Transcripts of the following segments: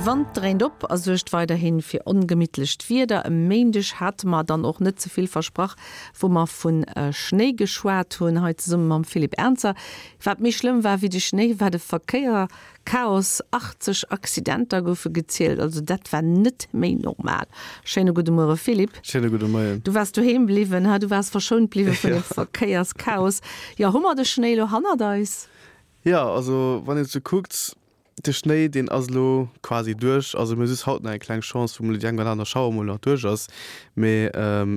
De Wand dréint op a suergt weiderhi fir ongemittlecht Wieder. E Méindeg hate mer dann och net ze vill versprach, wou mer vu Schnéi geschwat hunn, hei zesumme mam Philippe Ernzer. Wat méi schlëmm war wéi de Schnéi, war de Verkéier. Chaos, 80 Accidenter goufe gezielt, also dat war net méi normal. Schéine gudde Muere Philippe. Schéine gudde Moien. Du waars doheem bliwwen, ha? Du waars verschount bliwwe vun dem Verkéierschaos. Jo, hu mer de Schnéi elo hannert eis? Jo, also wann een et sou kuckt, de Schnéi deen ass elo quasi duerch. Also mir hu just haut nach eng kleng Chance, wou mol déi eng oder aner Schauer mol nach duerch ass. Mee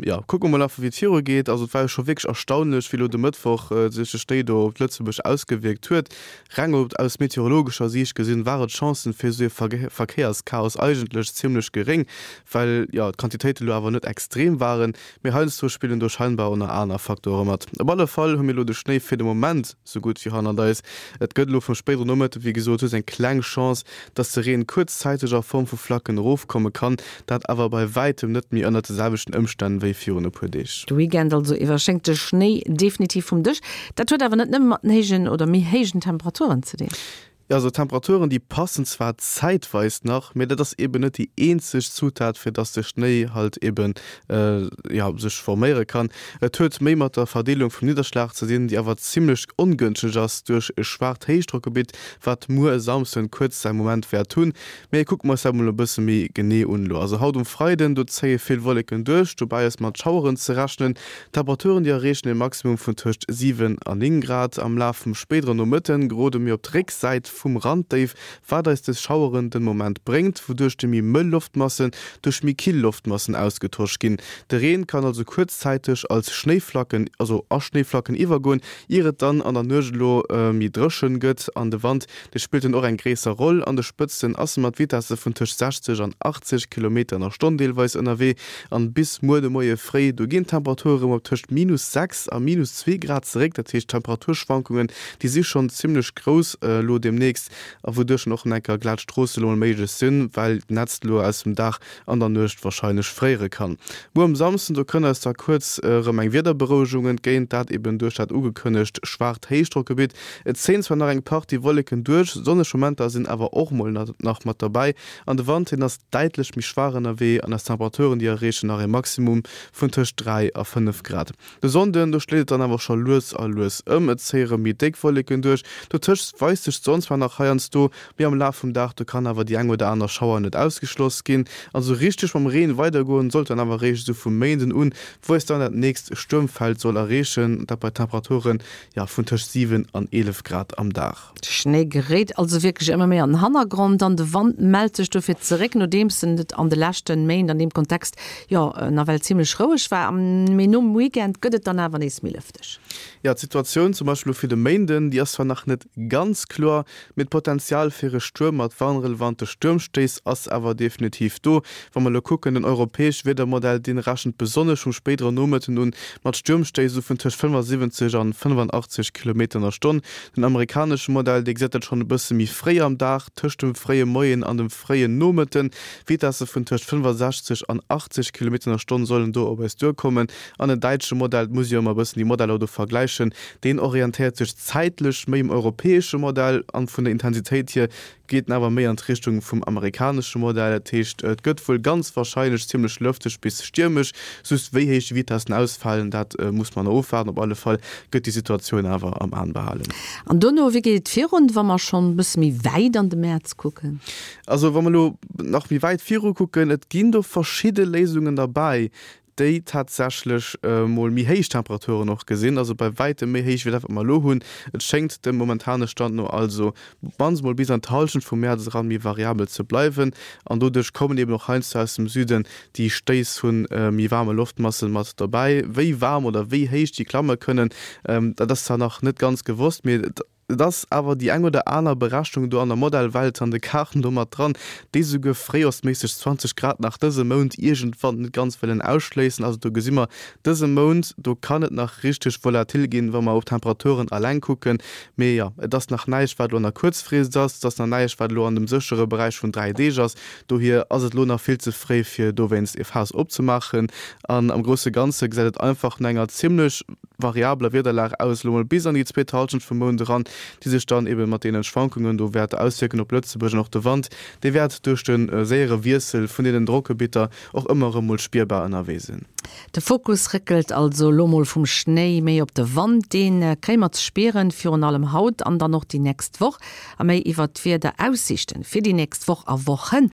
jo, kucke mer mol einfach wéi et viru geet. Also et war jo scho wierklech erstaunlech, wéi elo de Mëttwoch sech de Schnéi do op Lëtzebuerg ausgewierkt huet. Reng op aus meteorologescher Siicht gesinn, ware d'Chancen fir esou ee Verkéierschaos eigentlech zimmlech geréng, well jo d'Quantitéite lo awer net extrem waren. Mee heiansdo spillen do scheinbar och nach aner Facteure mat. Op alle Fall hu mir lo de Schnéi fir de Moment sou gutt wéi hannert eis. Et gëtt elo vum spéidere Nomëtte wéi gesot just eng kleng Chance, dass de Reen kuerzzäiteg a Form vu Flacken erofkomme kann, dat awer bei wäitem net méi ënnert de selwechten Ëmstänn wéi virun e puer Deeg. De Weekend also iwwer schéngt de Schnéi definitiv vum Dësch. Dat huet awer net nëmme mat den héijen oder méi héijen Temperaturen ze dinn. Jo, also d'Temperaturen, déi passen zwar zäitweis nach, mee dat ass eben net déi eenzeg Zutat, fir dass de Schnéi halt eben, jo, sech forméiere kann. Et huet méi mat der Verdeelung vum Nidderschlag ze dinn, déi awer zimmlech ongënschteg ass duerch e schwaacht Héichdrockgebitt, wat muer e Samsden kuerz säi Moment wäert hunn. Mee kucke mer eis dat mol e bësse méi genee un elo. Also haut um Freiden, do zéie vill Wolleken duerch, dobäi ass mat Schaueren ze rechnen. D'Temperaturen, déi erreechen e Maximum vun tëscht 7 a 9 Grad. Am Laf vum spéidere Nomëtte gerode mir op d'Récksäit vum Randdéif, wat eis des Schaueren den Moment bréngt, wouduerch déi méi mëll Loftmassen duerch méi kill Loftmassen ausgetosch ginn. De Reen kann also kuerzzäiteg als Schnéiflacken, also a Schnéiflacken iwwergoen, ier et dann an der Nuecht elo méi dréchen gëtt an de Wand Dee spillt dann och eng gréisser Roll. An de Spëtzten ass e mat Vitesse vun tëscht 60 an 80 Kilometer an der Stonn deelweis ënnerwee. An bis muer de Moie fréi, do ginn d'Temperature rëm op tëscht minus 6 a minus 2 Grad zeréck. Dat heescht, d'Temperaturschwankungen, déi si schonn zimmlech grouss elo deemnächst a wouduerch dann och en enker glat Stroosse elo mol méiglech sinn, well d'Nätzt elo aus dem Dag an der Nuecht warscheinlech fréiere kann. Muer um Samsden, do kënnt eis da kuerz erëm eng Wiederberouegung entgéint, dat eben duerch dat ugekënnegt schwaacht Héichdrockgebitt. Et zéien zwar nach eng Partie Wolleken duerch, sonneg Momenter sinn awer och mol nach mat derbäi an de Wand, hien ass däitlech méi schwaach ënnerwee an eis Temperaturen, déi erreechen nach e Maximum vun tëscht 3 a 5 Grad. De Sonnden, do schléit et dann awer scho lues a lues ëm, et zéie rëm méi déck Wolleken duerch. Dotëscht weist sech d'Sonn zwar nach heiansdo, mee am Laf vum Dag, do kann awer déi eng oder aner Schauer net ausgeschloss ginn. An esou richteg mam Reen weidergoen sollt dann awer eréischt esou vum Méinden un, wou eis dann dat nächst Stuermfeld soll erreechen, dat bei Temperaturen, jo, vun tëscht 7 an 11 Grad am Dag. De Schnéi geréit also wierklech ëmmer méi an den Hannergrond an de Wand mellt sech dofir zeréck, nodeems en et an de leschte Méint an deem Kontext jo nawell zimmlech roueg war. Mee nom Weekend gëtt et dann awer nees méi lëfteg. Jo, d'Situatioun zum Beispill elo fir de Méinden, déi ass zwar nach net ganz kloer, mee d'Potenzial fir e Stuerm mat warnrelevante Stuermstéiss ass awer definitiv do. Wa mer elo kucken, den europäesche Wiedermodell, dee rechent besonnesch vum spéidere Nomëtten un mat Stuermstéiss esou vun tëscht 75 an 85 Kilometer an der Stonn. Den amerikanesche Modell, dee gesäit dat schonn e bësse méi fréi am Dag, tëscht dem fréie Moien an dem fréien Nomëtten. Vitesse vun tëscht 65 an 80 Kilometer an der Stonn sollen do op eis duerkommen. An den däitsche Modell, et muss ee jo ëmmer e bëssen déi Modeller do vergläichen, deen orientéiert sech zäitlech méi um europäesche Modell an vun der Intensitéit hier geet en awer méi an d'Richtung vum amerikanesche Modell. Dat heescht, et gëtt wuel ganz warscheinlech zimmlech lëfteg bis stiermesch. Just wéi héich déi Vitessen ausfalen, dat muss mer nach ofwaarden. Op alle Fall gëtt déi Situatioun awer am An behalen. An dono, wéi geet et virun, wa mer schonn e bësse méi wäit an de Mäerz kucken? Also wa mer elo nach méi wäit viru kucken, et ginn do verschidde Léisungen derbäi, déi tatsächlech mol méi héich Temperaturen och gesinn, also bei wäitem méi héich wéi dat wat mer elo hunn. Et schéngt dem momentane Stand no also op d'mannst mol bis an d'Hallschent vum Mäerz eran méi variabel ze bleiwen an doduerch kommen eben och heiansdo aus dem Süden déi Stéiss vu méi waarme Loftmassen mat dobäi. Wéi waarm oder wéi héich déi klamme kënnen, dat ass zwar nach net ganz gewosst, mee et Et ass awer déi eng oder aner Berechnung do an der Modellwelt an de Kaarten do mat dran, déi souguer fréijorsméisseg 20 Grad nach dëse Mount iergendwann net ganz wëllen ausschléissen. Also do gesi mer, dëse Mount, do kann et nach richteg volatil ginn, wa mer op d'Temperaturen alleng kucken. Mee jo, et ass nach näischt, wat elo an der Kuerzfrist ass, et ass nach näischt, wat elo an dem séchere Beräich vun 3 Deeg ass. Dohier ass et elo nach vill ze fréi, fir dowéinst e Faass opzemaachen. An am grousse Ganze gesäit et einfach no enger zimmlech variabeler Wiederlag aus, elo mol bis an déi zweet Hallschent vum Mount eran. déi sech dann ebe mat deene Schwankungen do wäerte auswierken op Lëtzebuerg. An och de Wand, dee wäert duerch de séiere Wiessel vun deenen Drockgebitter och ëmmer erëm mol spierbar ënnerwee sinn. De Fokus réckelt also elo mol vum Schnéi méi op de Wand. Dee kréie mer ze spieren, virun allem haut an dann och déi nächst Woch. A méi iwwert d'Wiederaussiichten fir déi nächst Woch a Wochen.